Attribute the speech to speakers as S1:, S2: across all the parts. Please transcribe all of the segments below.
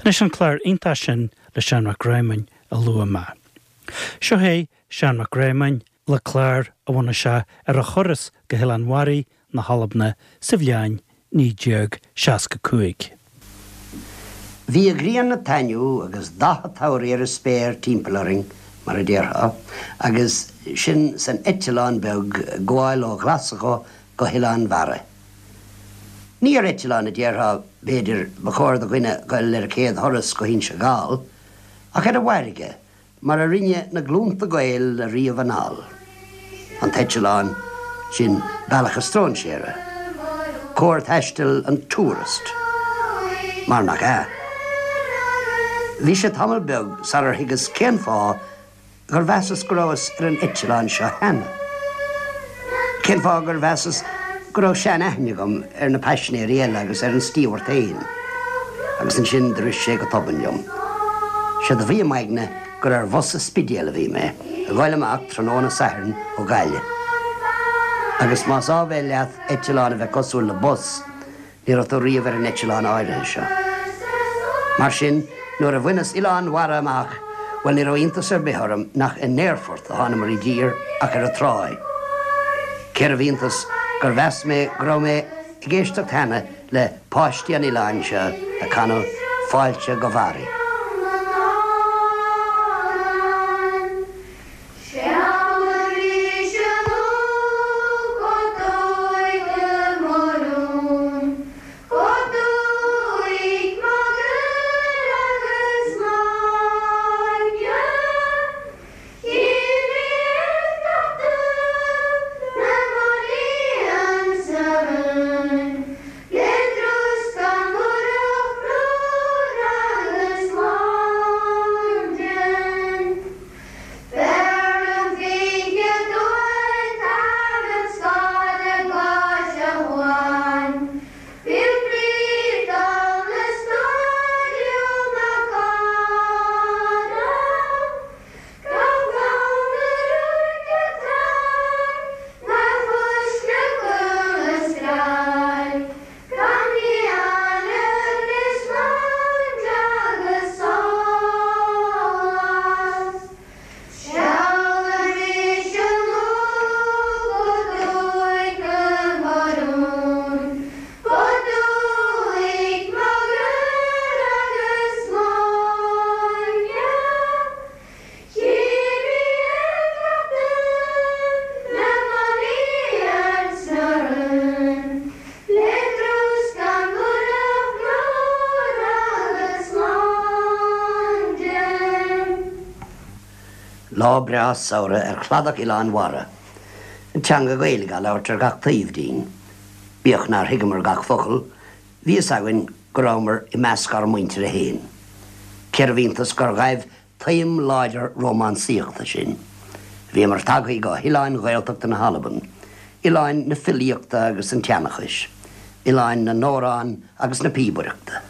S1: Anois an clár iontach sin le Seán Mac Réamoinn a luaigh mé. Seo é Seán Mac Réamoinn le clár a bhunaigh sé ar a thuras go hOileán Mharaí na hAlban sa bhliain 1965.
S2: Bhí an ghrian ag taitneamh agus dath an tsamhraidh ar an spéir timpeall orainn, mar a déarfá, agus sinn san eitleán beag ag gabháil ó Ghlaschú go hOileán Bharraigh. Ní ar eitleán a déarfá, b'fhéidir, ba chóir do dhuine dhul ar a chéad thuras go hInse Gall, ach ar an bhfarraige, mar a rinne na glúnta Gael ariamh anall. An t-eitleán, sin bealach an stróinséara, cóir taistil an tourist, mar nach ea? Bhí sé tamall beag sarar thuigeas cén fáth gur mheasas go rabhas ar an eitleán seo cheana. Cén fáth gur mheasas go raibh sean-aithne agam ar na paisinéirí eile agus ar an stíobhart féin. Agus ansin do rith sé go tobann liom. Séard a bhí i m'aigne gur ar bhus an Spidéil a bhí mé, ag goil amach tráthnóna Sathairn ó Ghaillimh. Agus más áibhéil leat eitleán a bheith cosúil le bus, ní raibh tú riamh ar an eitleán áirithe seo. Mar sin, nuair a bhaineas Oileán Bharra amach, bhuel ní raibh iontas ar bith orm nach in aerfort a thánamar i dtír ach ar an tráigh. Cérbh iontas gur mheas mé go raibh mé ag éisteacht cheana le páistí an oileáin seo ag canadh Fáilte go Mharaidh. Lá breá samhraidh ar chladach Oileán Bharra. An teanga Ghaeilge á labhairt ar gach taobh dínn. Bíodh nár thuigeamar gach focal, bhí fhios againn go rabhamar i measc ár muintire fhéin. Cérbh iontas gur ghaibh taom láidir rómánsaíochta sinn. Bhíomar tagthaí go hoileáin Ghaeltachta na hAlban, oileáin na filíochta agus an tseanchais, oileáin na n-amhrán agus na píobaireachta.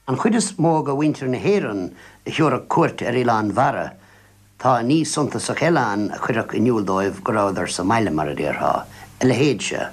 S2: An chuid is mó de mhuintir na hÉireann a thiúrfadh cuairt ar Oileán Bharra, tá ní suntasach eile ann a chuirfeadh in iúl dóibh go rabhadar sa mbaile, mar a déarfá, a leithéid seo.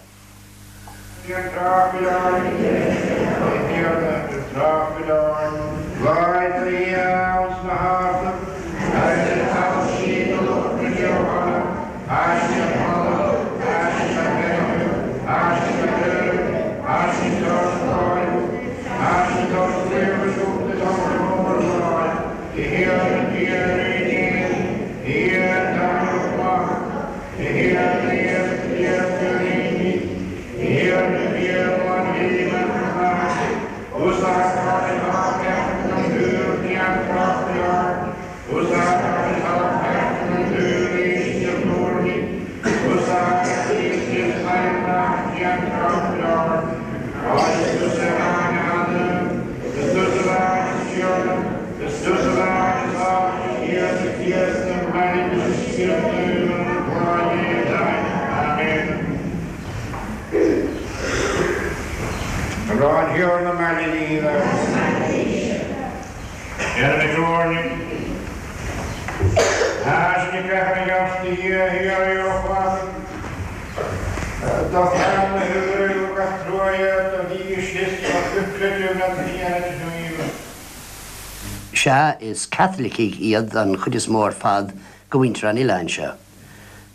S2: Sea, is Caitlicigh iad an chuid is mó ar fad de mhuintir an oileáin seo.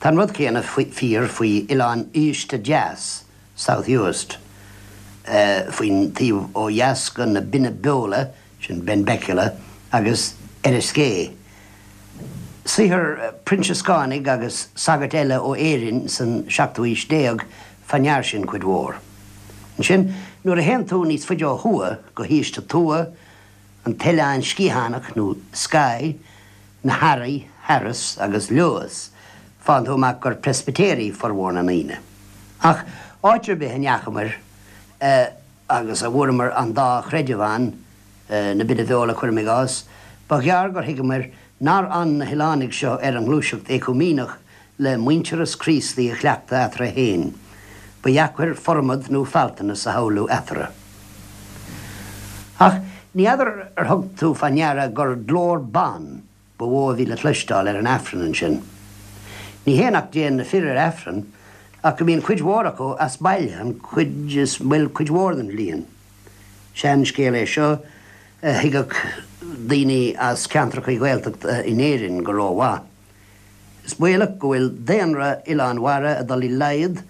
S2: Tá an rud céanna fíor faoi Oileán Uibhist Deas, South Uist, faoin taobh ó dheas de na Binne Beola, sin Benbecula, agus Eriskay. Saothar Proinsiascánaigh agus sagairt eile ó Éirinn san seachtú haois déag fá ndear sin cuid mhór. Ansin, nuair a théann tú níos faide ó thuaidh, go hUibhist a' Tuath, an tOileán Sciathánach nó Skye, na hEarraí, Harris, agus Lewis, faigheann tú amach gur Preispitéirigh formhór na ndaoine. Ach áit ar bith a ndeachamair, agus a bhfuaireamar an dá chreideamh ann, na Binne Bheola cuirim i gcás, ba ghearr gur thuigeamair nár fhan na hoileánaigh seo ar an ngluaiseacht éacúiméineach le muintearas Críostaí a chleachtadh eatarthu féin. Ba dheacair formad nó faltanas a shamhlú eatarthu. Ach ní fheadar ar thug tú fá ndeara gur glór ban ba mhó a bhí le cloisteáil ar an Aifreann ansin. Ní hé nach dtéann na fir ar Aifreann, ach go mbíonn cuid mhór acu as baile an chuid is, bhuel, cuid mhór den bhliain. Seanscéal é seo a thuigfeadh daoine as ceantracha Gaeltachta in Éirinn go rómhaith. Is baolach go bhfuil daonra Oileán Bharra ag dul i laghad,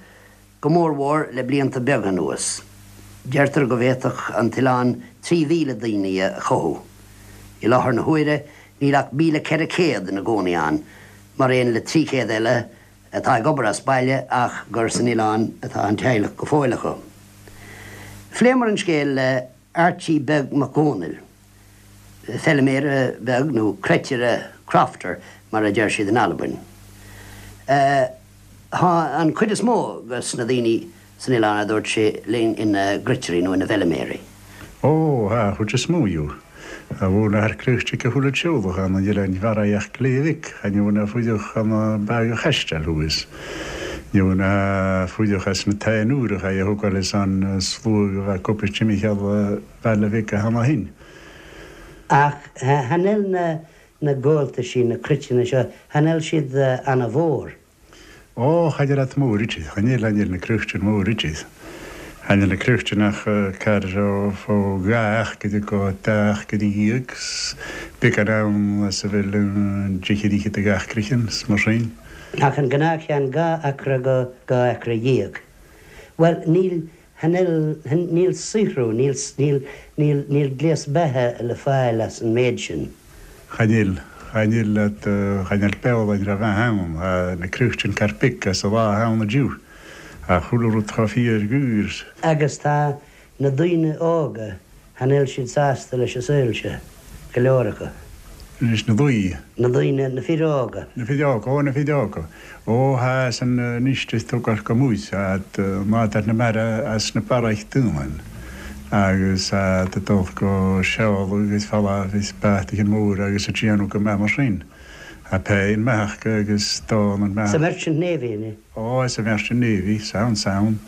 S2: go mórmhór le blianta beaga anuas. Deirtear go bhféadfadh an t-oileán 3,000 daoine a chothú. I láthair na huaire níl ach 1,400 ina gcónaí ann, mar aon le 300 eile atá ag obair as baile ach gur san oileán atá an teaghlach go fóill acu. Phléamar an scéal le Archie Beag Mac Dhónaill, feiliméara beag nó cruitire, crofter, mar a deir siad in Albain. Tá an chuid is mó de na daoine san oileán, a dúirt sé linn, ina gcruitirí nó ina bhfeiliméaraí.
S3: Ó, tá an chuid is mó dhiobh. A bhfuil na harcríochtaigh a chuile tseoladh ann an oileáin mharaí ach Gléibhic, chan fhiú na fuideach an bag a chaisteal thuas. Ní fhiú na fuideach as na táinúireach é a thógáil is an sluagh a bheith cupis timcheall Bhaile Mhic a hana shin.
S2: Ach chan eil na na gabháltaisí, na cruiteanna seo, chan eil siad ana-mhór.
S3: Ó, cha ndeir at mór iad, cha ndeir, cha ndeir na cruichtean mór iad. Cha ndeir na cruichtean ach car ó fó dha achair go dá achair dhéag 's beagán ann as a bhfuil an deichiú fhichead de gach cruichtean 's mar sin.
S2: Ach an gnáthcheann dhá acra go dhá acra dhéag. Bhuel, níl, Chan eil, níl saothrú, níl, níl, níl, níl gléas beatha le fáil as an méid sin.
S3: Chan eil, chan eil at, chan eil beola an raibh ann, tá na cruichtean carpic as a lá ann inniu, ach chuile rud chomh fíor dhaor.
S2: Agus tá na daoine óga, chan eil siad sásta leis an saol seo, go leor acu.
S3: Leis na daoine.
S2: Na daoine, na fir óga.
S3: Na fir óga, ó na fir óga. Ó thá san anois is tógáil go múis at nádar na mara as na barraich daoine agus at a dul go seoladh agus falla is beathaithe mór agus a déanamh go maith mar sin. Tá pé an mbeathach agus dán an
S2: mbeathach. Sa Merchant Navy, an ea?
S3: Ó, sa Merchant Navy, sound, sound.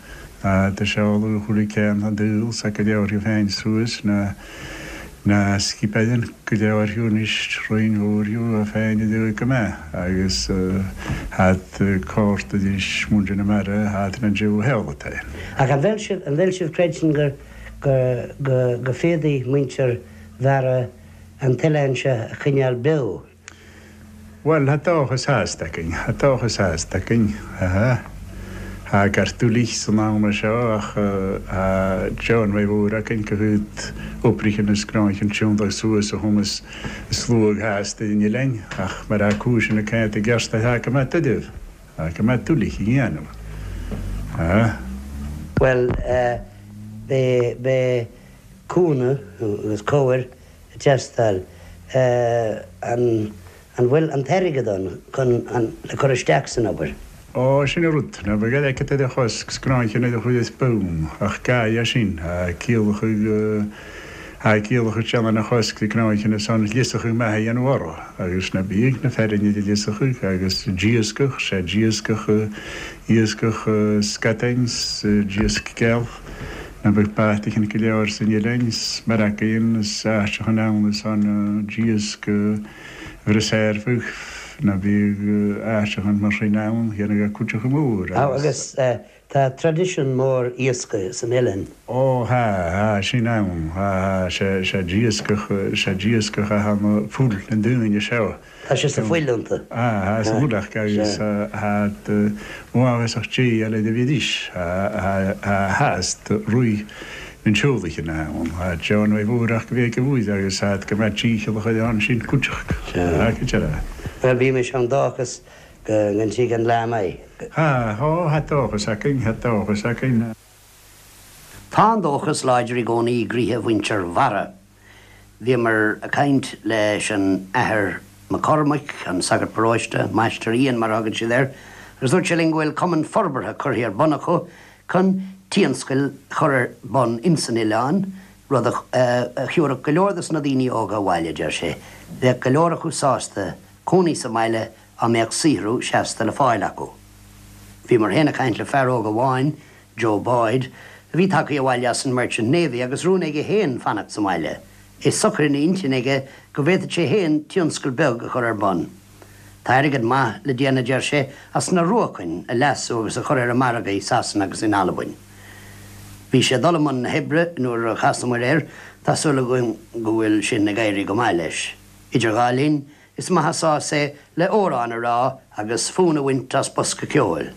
S3: Do seoladh chuile ceann an dúil 's go leor féin suas na. Na scipeann go leor thiu anois, roinn mhór thiu a féin a dúidh go mbeadh agus hat cárta anois muintir na mara hat na dtriú heolata.
S2: Ach an bhfuil sibh, an bhfuil sibh creideann gur, go, go, go féadfaidh muintir Bharra an t-oileán seo a choinneáil beo?
S3: Bhuel, tha dòchas athast againn, tha dòchas athast againn, ha. Tha gortú lich san am seo ach tha deonmhaidh mhór againn go chuid oibrithe is gnáicheann tiontaigh suas a chumas sluagh theas ar an oileán ach mar tha cúiseanna cainte i gceart tha go maith duibh, tha go maith duilich a dhéanamh, ha.
S2: Bhuel, beidh, beidh cúnamh agus cabhair ag teastáil. An bhfuil an t-airgead ann chun an le cur isteach san obair?
S3: Ó, sin an rud. Ná beidh airgead ar a chosc 's gnáicheann ar a chuid is bonn, ach ga é sin. Tá ciallacha, tá ciallacha déanamh na chosc de gnáicheann is an ghliosachadh maith a dhéanamh orthu, agus ná bíodh na fearainn idir ghliosachadh agus d'iascach, sé d'iascach, iascach scatáin 's d'iasc geal. Ná beadh baiteachan go leor san oileán 's mar againn is áiteachan ann is an d'iasc bhrisearfadh ná bíodh áiteachan mar sin ann dhéanfadh a cuideachta mór
S2: agus. Agus tá traidisiún mór iascaigh san oileán.
S3: Ó thá, thá sin ann, thá, thá, sé, sé d'iascach, sé d'iascach a thá na fuil na ndaoine seo.
S2: Tá sé sa fuil iontu.
S3: Tá sa mhullach agus tá uathbhasach Dé eile do bhídís. Tá theas do Rí na nSeolaicheann ann. Tá John Mhaigh Mhúrach go bhféice uaidh agus tá go mbeadh dícheallach ar an sin cuideachta. Tá go deireadh.
S2: Bhuel, bímis ann dóchas go ntig an lá maith.
S3: Tá, tá dóchas againn, tá dóchas againn.
S2: Tá an dóchas láidir i gcónaí i gcroíthe mhuintir Bharra. Bhíomar ag caint leis an Athair Mac Cormaic, an sagart paróiste, Máistir Ian mar a thugann siad air, agus dúirt sé linn go bhfuil cumann forbartha curtha ar bun acu chun tionscail a chur ar bun ins an oileán, rud a thiúrfadh go leor dos na daoine óga abhaile, a deir sé. Bheadh go leor acu sásta cónaí sa mbaile á mbeadh saothrú seasta le fáil acu. Bhíomar féin ag caint le fear óg amháin Joe Boyd, a bhí tagtha abhaile as an Merchant Navy agus rún aige féin fanacht sa mbaile, é socair ina intinn aige go bhféadfadh sé féin tionscal beag a chur ar bun. Tá airgead maith le déanamh, a deir sé, as na ruacain a leasú agus a chur ar an margadh i Sasana agus in Albain. Bhí sé ag dul i mbun na hoibre nuair a chasamair air, tá súil againn go bhfuil sin ag éirí go maith leis. Idir dhá linn, Is maith an sás é le amhrán a rá agus fonn a bhaint as bosca ceoil.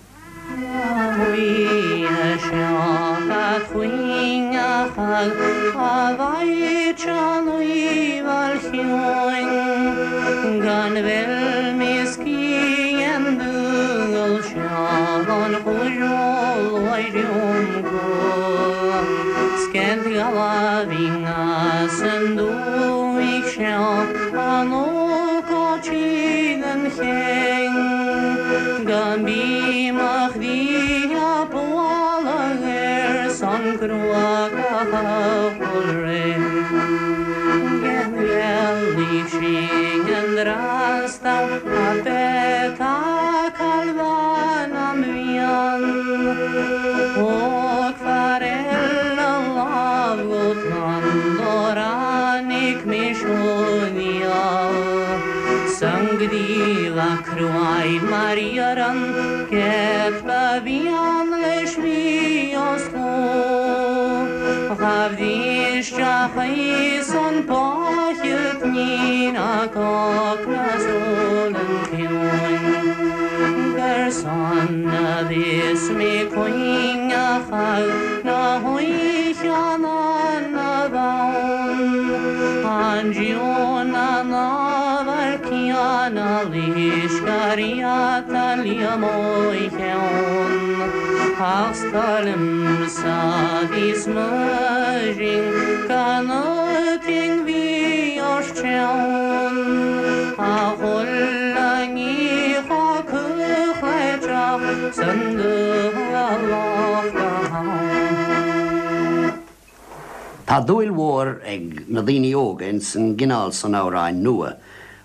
S2: Tá dúil mhór ag na daoine óga ins an gcineál san amhráin nua,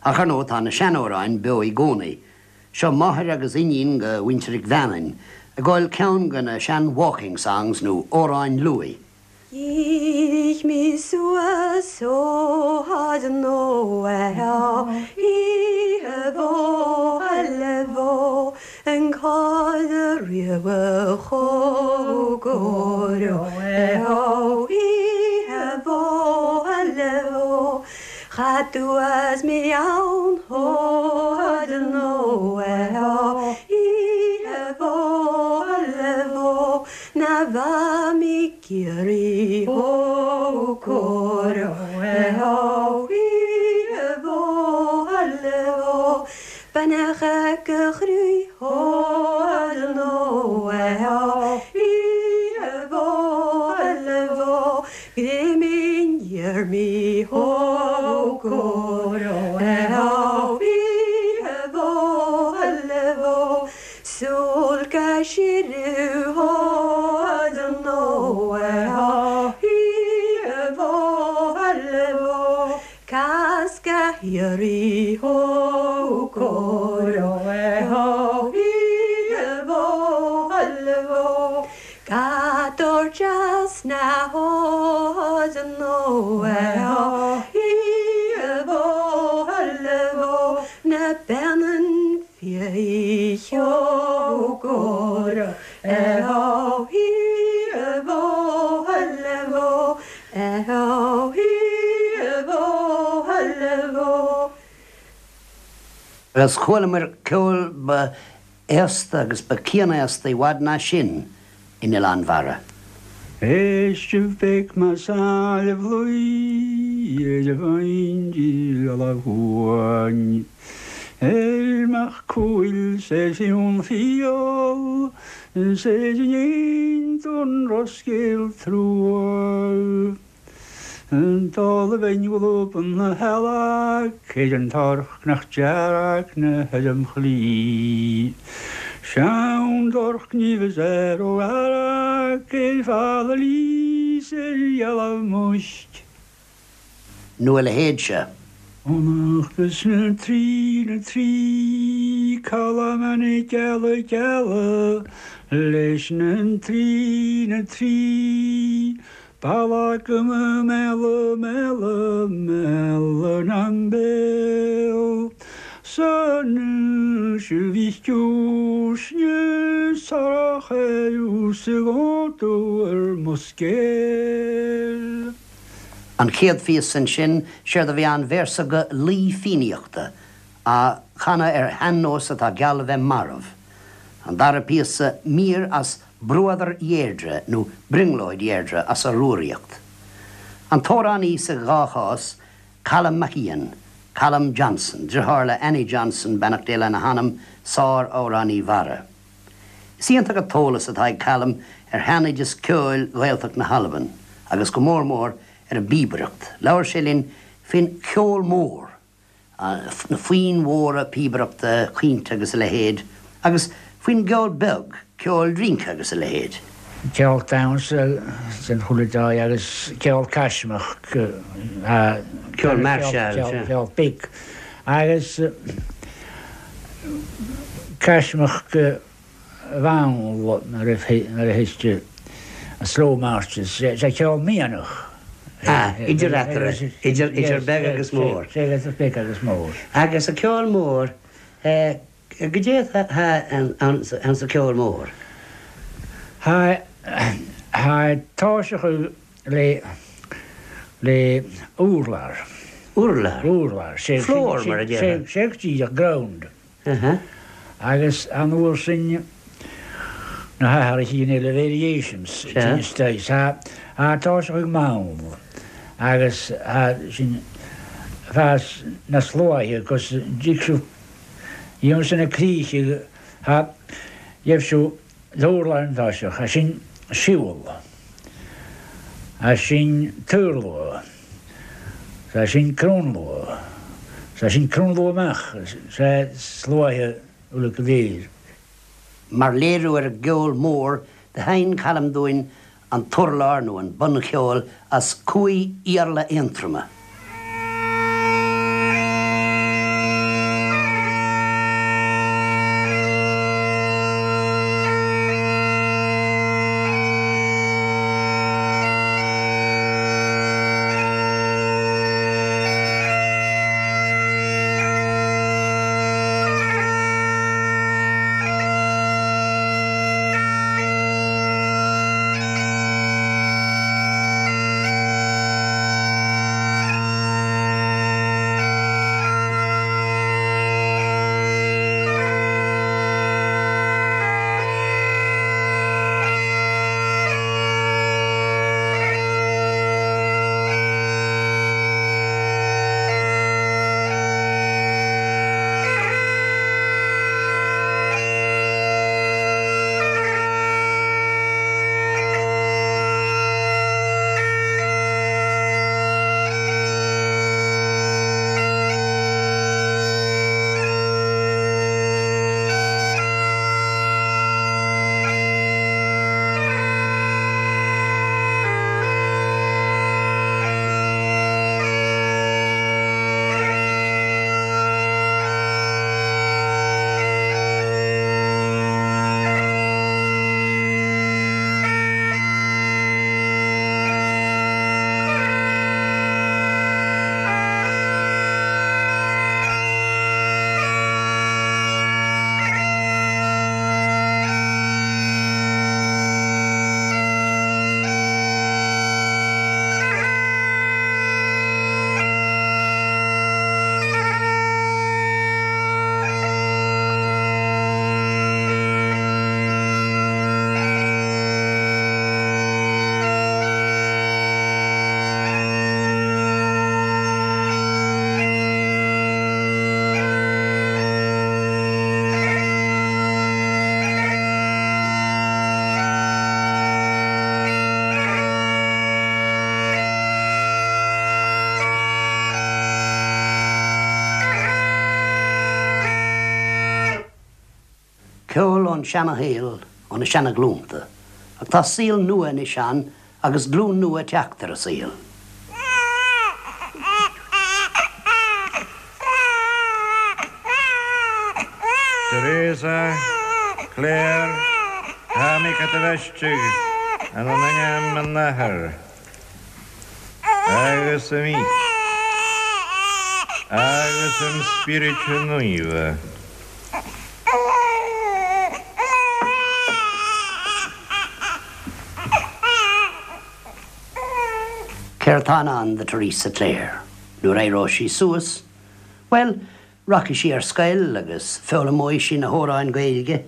S2: ach ar ndóigh tá na seanamhráin beo i gcónaí. Seo máthair agus iníon go mhuintir Mhic Mheannain ag gabháil ceann go na sean walking songs nó amhráin luaidh.
S4: Dhírigh mé suas ó fhad nó oíche mhó eile an cad a riabh chomh Oíche mhó eile Cha dtuas mé ann fhad nó oíche mhó eile Na bha mé Ciarraí ó cóir ó oíche mhó eile Beannacha go chroí ó nó oíche mhó eile Gréimín iarmaí ó cóir ó oíche mhó eile Súil go siriú nó oíche mhó eile Casca Chiarraí ó cóir oíche mhó eile Gador deas na hód nó oíche mhó eile Na beannan fiaigh ó oíche mhó eile Oíche mhó eile
S2: Agus chualamar ceol ba aosta agus ba cianaosta i bhfad ná sin in Oileán Bharra.
S3: Éistibh bec ma sáilbh luí ar a bhain amháin. Ar mach cúil sé fiún fial, sé gnéin don roscéal trua. Dála bheinn ghlúpan na heala, céid an torc nach dearg na headam chlí. Sean dorc ní bheas ar ó ara, céid fada lís ar gheala muisc.
S2: Nó a leithéid seo.
S3: Chonachtas na dtrí na dtrí calamanna geala geala leis na dtrí na dtrí Balagama mela mela mela nambel San shuvichusne saracheus ar muscél.
S2: An chéad phíosa ansin, séard a bhí ann véarsa go laoi Fiannaíochta, á chanadh ar shean-nós atá geall a bheith marbh. An dara píosa, mír as Bruadar Dheirdre nó Brionglóid Dheirdre as a Rúraíocht. An t-amhránaí sa dhá chás, Calum MacIain, Calum Johnson, driotháir le Annie Johnson, beannacht Dé lena hanam, sár-amhránaí Bharra. Is iontach an t-eolas atá ag Calum ar shean-oideas ceoil Ghaeltacht na hAlban, agus go mór mór ar an bpíobaireacht. Labhair sé linn faoin cheol mór. na foinn mhóra píobaireachta, caointe agus a leithéid, agus faoin gceol beag, ceol rince agus a leithéid.
S3: Ceol damhsa den chuile dóigh agus ceol caismeach,
S2: Ceol mairseáil, sea.
S3: Ceol beag agus caismeach go mhall nuair a thuigtear slow marches, sé ceol mianach.
S2: Ah, idir eatarthu, idir, idir beag agus mór.
S3: Sé, idir beag agus mór.
S2: Agus an ceol mór, goidé atá ann sa ceol mór?
S3: Tá, tá toiseacha le, le urlár.
S2: Urlár?
S3: Urlár, sé,
S2: Floor, mar a déarfá.
S3: Sé, sé go díreach, ground. Agus an uair sin na hathraithe eile, variations, tá tá sé ag mall agus sin fás na sluaithe agus d'fhig siú dhéanamh sin na críche ha gheibh siú d'urlár an toiseach, sin siúl, sin taorluath. Sea, sin cronnluath. Sea, sin cronnluath amach. Sea, sluaithe uilig go léir.
S2: Mar léiriú ar an gceol mór, do sheinn Calum dúinn an t-urlár nó an buncheol as Cumhaidh Iarla Aontroma. Ceol ón seana-shaol, ó na seana-ghlúnta. Ach tá saol nua anois ann agus glúin nua ag teacht ar an saol.
S5: Teresa, Clare, Tha mi ca thu bhaisteadh ann an ainm an Athar agus an Mhic agus an Spioraid Naofa.
S2: Céard tá in ann do Theresa Clare nuair a éireoidh sí suas? Bhuel, rachaidh sí ar scoil agus foghlaimeoidh sí na hamhráin Gaeilge.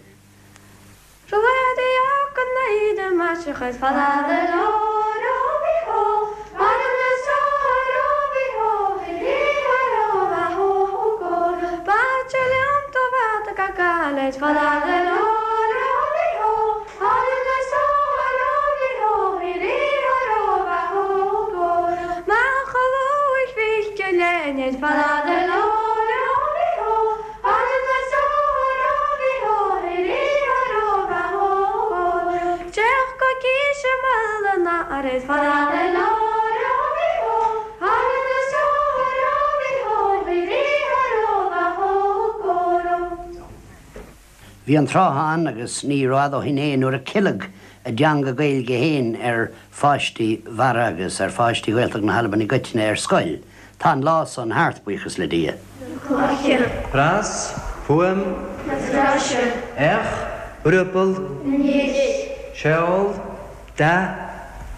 S2: Bhí an tráth ann, agus ní rófhada ó shin é, nuair a ceileadh a dteanga Gaeilge féin ar pháistí Bharra agus ar pháistí Ghaeltacht na hAlban i gcoitinne ar scoil. Tá an lá san thart, buíochas le Dia.
S4: Cloiche.
S6: Pras, fuaim.
S4: Na sraise.
S6: Each, riobar.
S4: Anois.
S6: Seol, dath.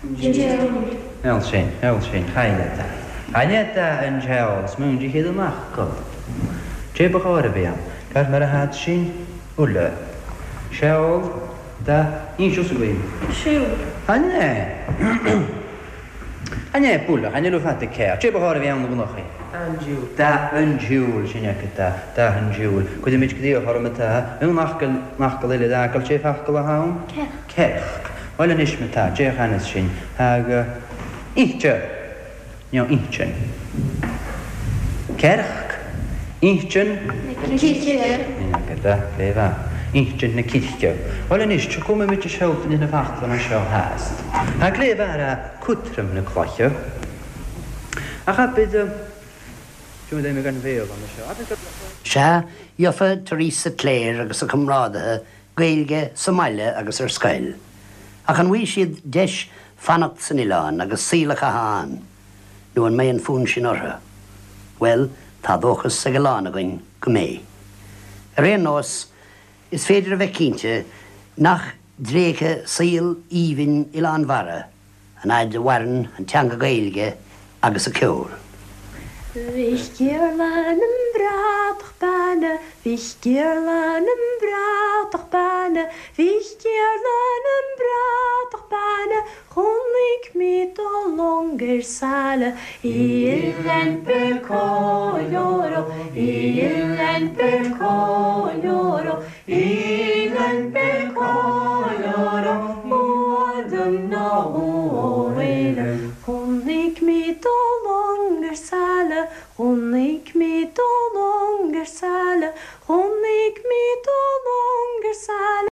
S4: Diúl.
S6: Eol sin, eol sin, chailleadh é. Chailleadh é an seol, 's múin de chéad an fhocal. Cé ba chóir a bhí ann, gar mar a thad sin, uile. Seol, dath, inseos againn.
S4: Siúl.
S6: Chan é. Chan é, bualadh, chan fhuil fada céard. Cé ba chóir a bhí ann na gnochaí.
S7: An diúl.
S6: Dath an diúl, sin é cad é, dath an diúl. Cuirimid go dtí a chorm atá, an fhocal, an fhocal eile d'fhágáil, cé focal atá ann?
S4: Cearc.
S6: Cearc. Bhuel anois ma tá, d'fhéach anas sin, aga inste, nó inchinn. Cearc, inchinn.
S4: Na circe.
S6: Aga da, fé mhaith. Inchinn na circe. Bhuel anois, tiocfaimid i seolta na faclanna seo theas. Tá cléibh ara cotrom na cloiche. Ach abair,
S2: Sea, gheofa Theresa Clare agus a comrádaithe Gaeilge sa mbaile agus ar scoil. Ach an bhfaighidh siad deis fanacht san oileán agus saol a chaitheamh ann? Nó an mbeidh an fonn sin orthu? Bhuel, tá dóchas ag a lán againn go mbeidh. Ar aon nós, is féidir a bheith cinnte nach dtréigfidh saol aoibhinn Oileán Bharra an fhaid a mhaireann an teanga Gaeilge agus a ceol.
S4: Mhic Iarla na mbratach beanna, Mhic Iarla na mbratach beanna, Mhic Iarla na mbratach beanna, Chonaic mé do long ar saile i Oileán Bercoloro, i Oileán Bercoloro, Oileán Bercoloro, Chonaic mé do long ar saile, Chonaic mé do long ar saile, Chonaic mé do long ar saile.